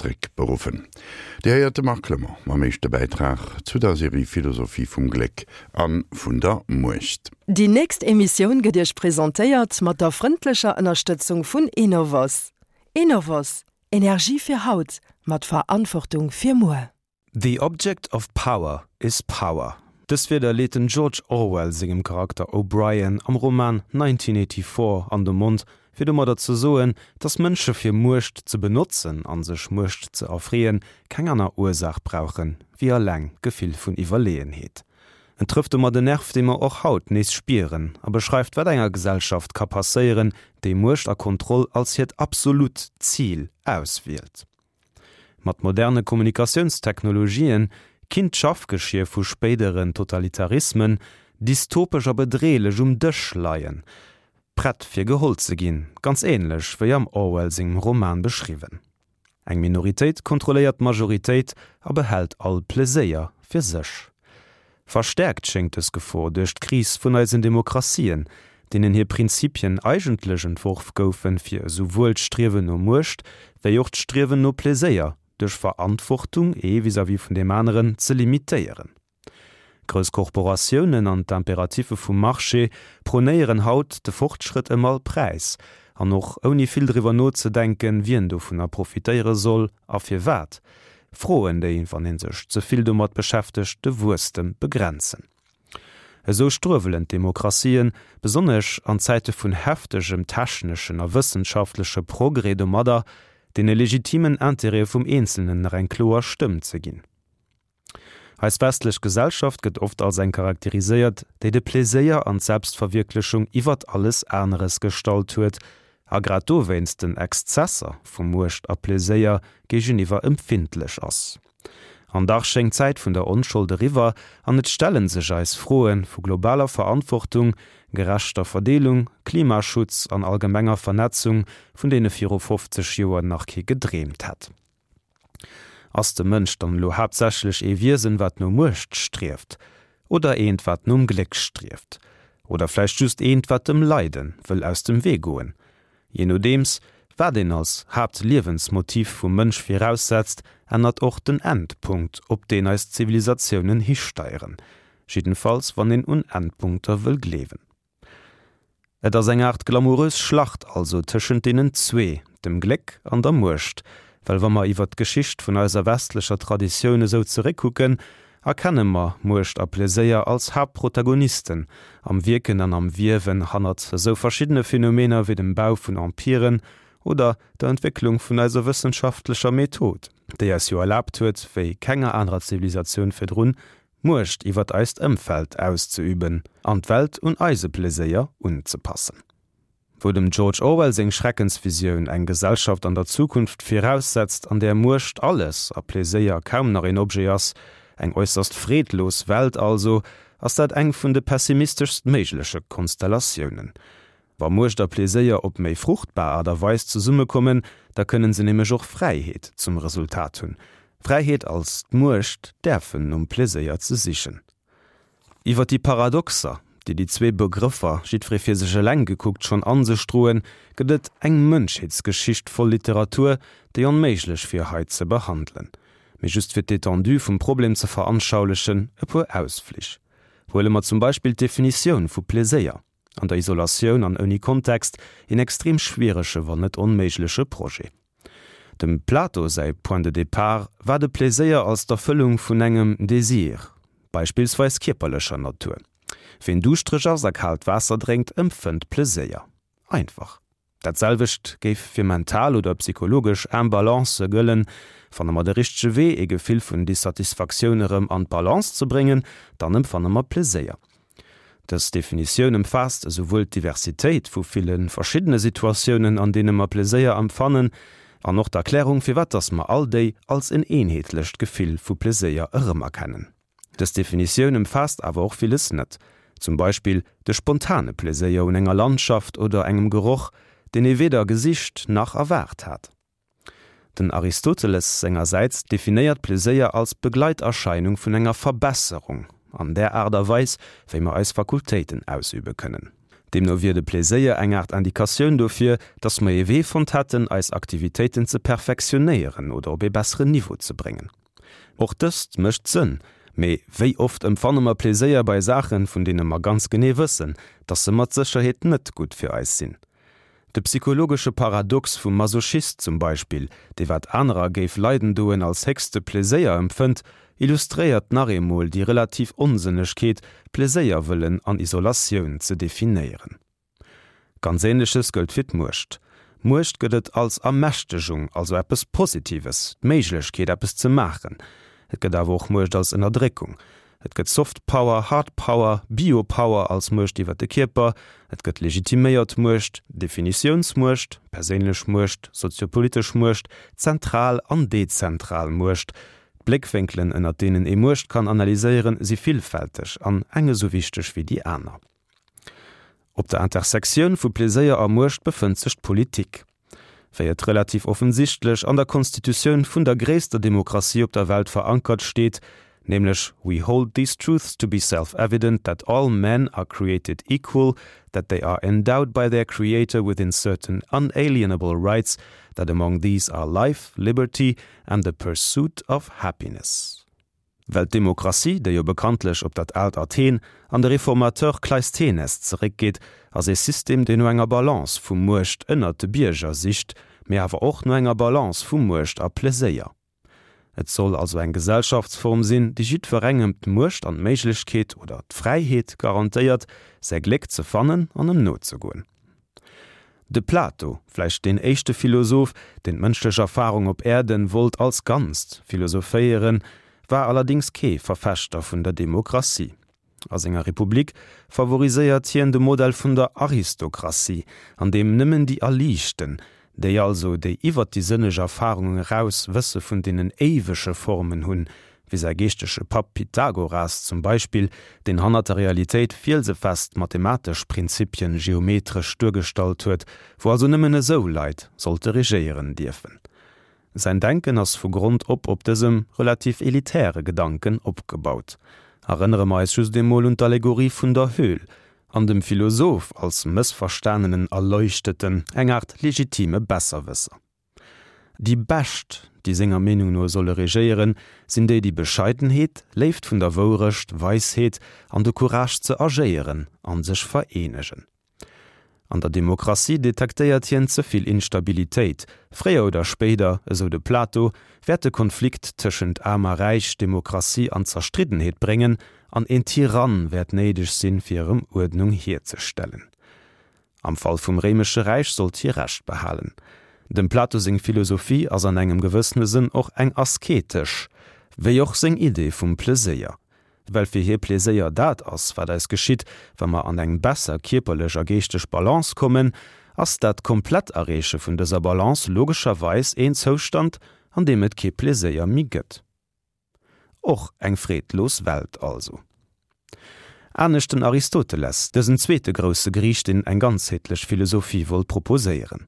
zréckberuffen. Dir héiert de Marc Clement mam éischte Bäitrag zu der Serie Philosophie vum Gléck a vun der Muecht. Déi nächst Emissioun gëtt Iech presentéiert mat der frëndlecher Ënnerstëtzung vun Enovos. Enovos, Energie fir haut, mat Verantwortung fir muer. The object of power is power. Dës Wierder leet den George Orwell sengem Charakter O'Brien am Roman 1984 an de Mond, fir domadder ze soen, datt Mënsche fir Muecht ze benotzen a sech Muecht ze erfreeën, keng aner Ursaach brauchen, wéi eleng d'Gefill vun Iwwerleeënheet. En trëfft domat en Nerv, dee mer och haut nees spieren, a beschreift, wat enger Gesellschaft ka passéieren, déi Muecht a Kontroll als hiert absolut Zil auswielt. Mat moderne Kommunikatiounstechnologien kinnt d'Schaffgeschier vu spéideren Totalitarismen dystopesch a bedreelech um Dësch leien, prett fir geholl ze ginn, ganz ähnlech wéi am Orwell sengem Roman beschriwwen. Eng Minoritéit kontrolléiert d'Majoritéit a behält all Pleséier fir sech. Verstäerkt schéngt dës Gefor duerch d'Kris vun eisen Demokratien, deenen hir Prinzipien eigentlech entworf goufen, fir esouwuel d'Striewen no Muecht wéi och d'Striewen no Pleséier duerch Verantwortung ee vis-à-vis vun deem aneren ze limitéieren. Grouss Korporatiounen an d'Imperatiffe vum Marché prônéieren haut de Fortschrëtt ëm all Präis, an och ouni vill driwwer nozedenken, wien dovunner profitéiere soll a firwat. Froen, déi, wann ee sech ze vill domat beschäftegt, de Wuesstem begrenzen. Esou struewelen d'Demokratien, besonnesch an Zäite vun heftegem techneschen a wëssenschaftleche Progrès domadder, deene legitimen Intérêtë vum Eenzelnen nach eng kloer Stëmm ze ginn. Eis westlech Gesellschaft gëtt oft als eng charakteriséiert, déi de Pleséier an d'Selbstverwierklechung iwwert alles aneres gestallt huet a grad dowéinst den Exzesser vu Muecht a Pleséier géigeniwwer empfindlech ass. An dach schéngt d'Zäit vun der Onschold eriwwer an et stelle sech eis Froe vu globaler Verantwortung, gerechter Verdeelung, Klimaschutz an allgemenger Vernetzung, vun deene viru 50 Joer nach kee gedreemt hätt. Ass de Mënsch dann elo haaptsächlech ee Wiesen, wat no Muecht strieft? Oder eent, wat nom Gléck strieft? Oder vläicht just eent, wat dem Leide wëll aus dem Wee goen? Jee nodeems, wat een als Haaptliewensmotiv vum Mënsch viraussetzt, ännert och den Endpunkt, op deen eis Zivilisatiounen histeieren. Jiddenfalls wann een un Endpunkter wëll gleewen. Et ass eng Aart glamourös Schlacht also tëschent deenen zwee, dem Gléck an der Muecht, well wa mer iwwert d'Geschicht vun eiser westlecher Traditioun esou zeréckkucken, erkenne mer Muecht a Pleséier als Haaptprotagonisten am Wierken an am Wiewen hannert esou verschiddene Phänomener wéi dem Bau vun Empiren oder der Entwécklung vun eiser wëssenschaftlecher Method, déi eis jo erlaabt huet, wéi kenger anerer Zivilisatioun virdrun, Muecht iwwert eist Ëmfeld auszeüben an d'Welt un eise Pleséier unzepassen. Wou dem George Orwell seng Schreckensvisioun eng Gesellschaft an der Zukunft viraussetzt, an där Muecht alles a Pleséier kaum nach een Objet ass, eng äusserst freedlos Welt also, ass dat eng vun de pessimisteschst méigleche Konstellatiounen. Wa Muecht a Pleséier op méi fruchtbar Aart a Weis zesummekommen, da kënnen se nämlech och Fräiheet zum Resultat hunn. Fräiheet als d'Muecht däerfen nom Pleséier ze sichen. Iwwer déi Paradoxer, déi déi zwee Begrëffer, jiddweree fir sech eleng gekuckt, schonn an sech droen, gëtt et eng Mënschheetsgeschicht voll Literatur, déi onméiglech wier hei ze behandelen. Mee just fir d'Étendue vum Problem ze veranschaulechen, e puer Ausflich. Huele mer zum Beispill d'Definitioun vu Pleséier. An der Isolatioun an ouni Kontext een extrem schwierege, wann net onméigleche Projet. Dem Plato säi Point de départ war de Pleséier als d'Erfëllung vun engem Désir, beispillsweis kierperlecher Natur. Ween duuschtereg ass a kaalt Waasser drénkt, empfënnt Pleséier. Einfach. Dat selwecht géif fir mental oder psychologesch Imbalancë gëllen. Fanne mer de richtege Wee, ee Gefill vun Dissatisfaktioun erëm an d'Balance ze bréngen, dann empfanne mer Pleséier. Dës Definitioun ëmfaasst esouwuel d'Diversitéit vu ville verschiddene Situatiounen, an deene mer Pleséier empfannen, an och d'Erklärung, firwat dass mer all déi als en eenheetlecht Gefill vu Pleséier erëmerkennen. Dës Definitioun ëmfaasst awer och villes net, zum Beispill de spontane Pleséier un enger Landschaft oder engem Geroch, deen ee weder gesicht nach erwaart hat. Den Aristoteles sengersäits definéiert Pleséier als Begleiterscheinung vun enger Verbesserung an där Aart a Weis, wéi mer eis Fakultéiten ausübe kënnen. Deemno wier de Pleséier eng Aart Indikatioun dofir, datt mer ee Wee fonnt hätten, eis Aktivitéiten ze perfektionéieren oder op ee besseren Niveau ze bréngen. Och dëst mécht Sënn, mee wéi oft empfanne mer Pleséier bei Saachen, vun deene mer ganz genee wëssen, datt se mat Sécherheet net gutt fir eis sinn? De psychologesche Paradox vum Masochist zum Beispill, dee wat anerer géif leiden doen als héchste Pleséier empfënnt, illustréiert nach eemol déi relativ Onsënnegkeet, Pleséier wëllen an Isolatioun ze definéieren. Ganz Ähnleches gëllt fir d'Muecht. Muecht gëtt et als Ermächtegung, also eppes Positives, d'Méiglechkeet eppes ze maachen. Et gëtt awer och Muecht als Ënnerdréckung. Et gëtt Soft Power, Hard Power, Biopower als Muecht iwwer de Kierper, et gëtt legitiméiert Muecht, Definitiounsmuecht, perséinlech Muecht, soziopolitesch Muecht, zentral an dezentral Muecht. D'Bléckwénkelen, ënnert deenen ee Muecht kann analyséieren, si villfälteg an eng esou wichteg wéi déi aner. Op der Intersektioun vu Pleséier a Muecht befënnt sech d'Politik. Wéi et relativ offensichtlech an der Konstitutioun vun der gréisster Demokratie op der Welt verankert steet, nämlech We hold these truths to be self-evident that all men are created equal, that they are endowed by their Creator within certain unalienable rights, that among these are life, liberty and the pursuit of happiness. Well d'Demokratie, déi jo bekanntlech op dat aalt Athen an de Reformateur Kleisthenes zeréckgeet, ass ee System, deen no enger Balance vu Muecht ënnert de Bierger sicht, mee awer och no enger Balance vu Muecht a Pleséier. Et soll also eng Gesellschaftsform sinn, déi jiddwerengem d'Muecht an d'Méiglechkeet oder d'Fräiheet garantéiert, säi Gléck ze fannen an em nozegoen. De Plato, vläicht deen éischte Philosoph, deen d'mënschlech Erfarung op Äerden wollt als Ganzt philosophéieren, war allerdings kee Verfechter vun der Demokratie. A senger Republik favoriséiert hien de Modell vun der Aristokratie, an deem nëmmen déi Erliichten, déi also, déi iwwer déi sënneg Erfarung eraus Wësse vun deenen éiwege Formen hunn, wéi säi geeschtege Papp Pythagoras zum Beispill, deen hannert der Realitéit fielsefest mathematesch Prinzipien geometresch duergestallt huet, wou also nëmmen esou Leit sollte regéieren dierfen. Säin Denken ass vu Grond op op dësem relativ elitäre Gedanken opgebaut. Erënnere mer eis just emol un d'Allegorie vun der Höhl an dem Philosoph als mëssverstanenen Erleuchteten, eng Aart legitime Besserwësser. Déi Bescht, déi senger Meenung no solle regéieren, sinn déi, déi Bescheidenheet, Léift vun der Wourecht, Weisheet an de Courage ze agéieren an sech vereenegen. An der Demokratie detektéiert hien ze vill Instabilitéit. Fréier oder spéider, esou de Plato, wäert de Konflikt tëschent Aarm a Räich Demokratie an Zerstriddenheet bréngen an een Tyrann wäert néideg sinn, fir erëm Uerdnung hierzestellen. Am Fall vum Réimesche Räich sollt hie Recht behalen. Dem Plato seng Philosophie ass an engem gewëssene Sënn och eng asketesch, wéi och seng Idee vum Pleséier. Well fir hie Pleséier dat ass, wat eis geschitt, wa mer an eng besser kierperlech a geeschteg Balance kommen, ass dat komplett Erreeche vun dëser Balance logescherweis een Zoustand, an deem et kee Pleséier méi gëtt. Och eng freedlos Welt also. Anescht den Aristoteles, dësen zweete grousse Griich, deen eng ganzheetlech Philosophie wollt proposéieren.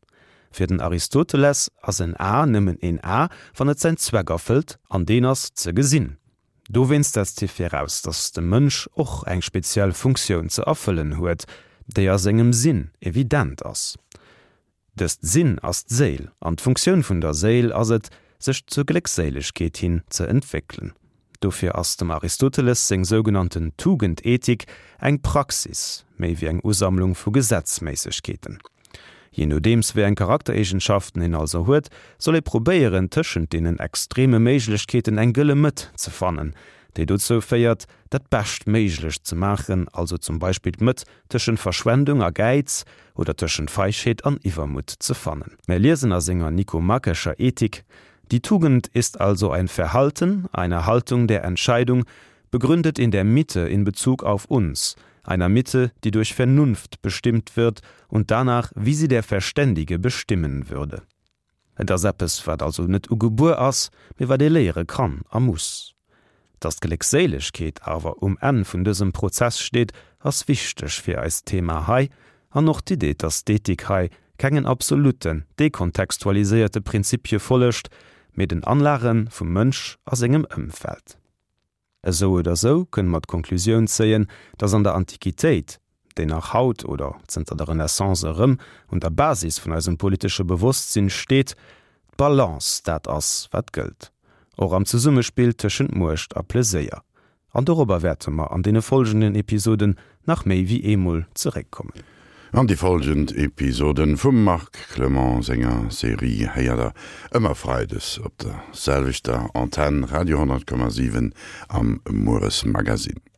Fir den Aristoteles ass en A nëmmen een A, wann et säin Zweck erfëllt, an deen ass, ze gesinn. Dowéinst setzt hie viraus, datt de Mënsch och eng speziell Funktioun ze erfëllen huet, déi a sengem Sinn evident ass. Dëst Sinn ass d'Séil, an d'Funktioun vun der Séil ass et, sech zur Gléckséilegkeet hin ze entwéckelen. Dofir ass dem Aristoteles seng sougenannten Tugendethik eng Praxis, méi wéi eng Usammlung vu Gesetzméissegkeeten. Jee nodeems wéi eng Charaktereegenschaften een also huet, soll ee probéieren, tëschent deenen extreme Méiglechkeeten eng gëlle Mëtt ze fannen, déi dozou féiert, dat Beschtméiglecht ze maachen, also zum Beispill d'Mëtt tëschent Verschwendung a Gäiz oder tëschent Feigheet an Iwwermutt ze fannen. Mär liesen a senger Nikomakescher Ethik, Die Tugend ist also ein Verhalten, eine Haltung der Entscheidung, begründet in der Mitte in Bezug auf uns, einer Mitte, die durch Vernunft bestimmt wird und danach, wie sie der Verständige bestimmen würde. Et ass eppes, wat also net ugebuer ass, mee wat ee léiere kann a muss. Dass d'Gléckséilegkeet awer um Enn vun dësem Prozess steet, ass wichteg fir eist Thema hei, an och d'Idee, dass d'Ethik hei kengen absoluten, dekontextualiséierte Prinzipie follegt, mee den Anlage vum Mënsch a sengem Ëmfeld. Esou oder esou kënne mer d'Konklusioun zéien, datt an der Antiquitéit. deen nach haut oder zënter der Renaissance erëm un der Basis vun eisem politesche Bewosstsinn steet, D'Balance, dat ass, wat gëllt. Och am Zesummespill tëschent Muecht a Pleséier. An dorobber wäerte mer an deene folgenden Episoden nach méi wéi eemol zeréckkommen. An déi folgend Episoden vum Marc Clement senger Serie héiert der ëmmer Freides op der selwechter Antenn, Radio 100,7 am Mueresmagazin.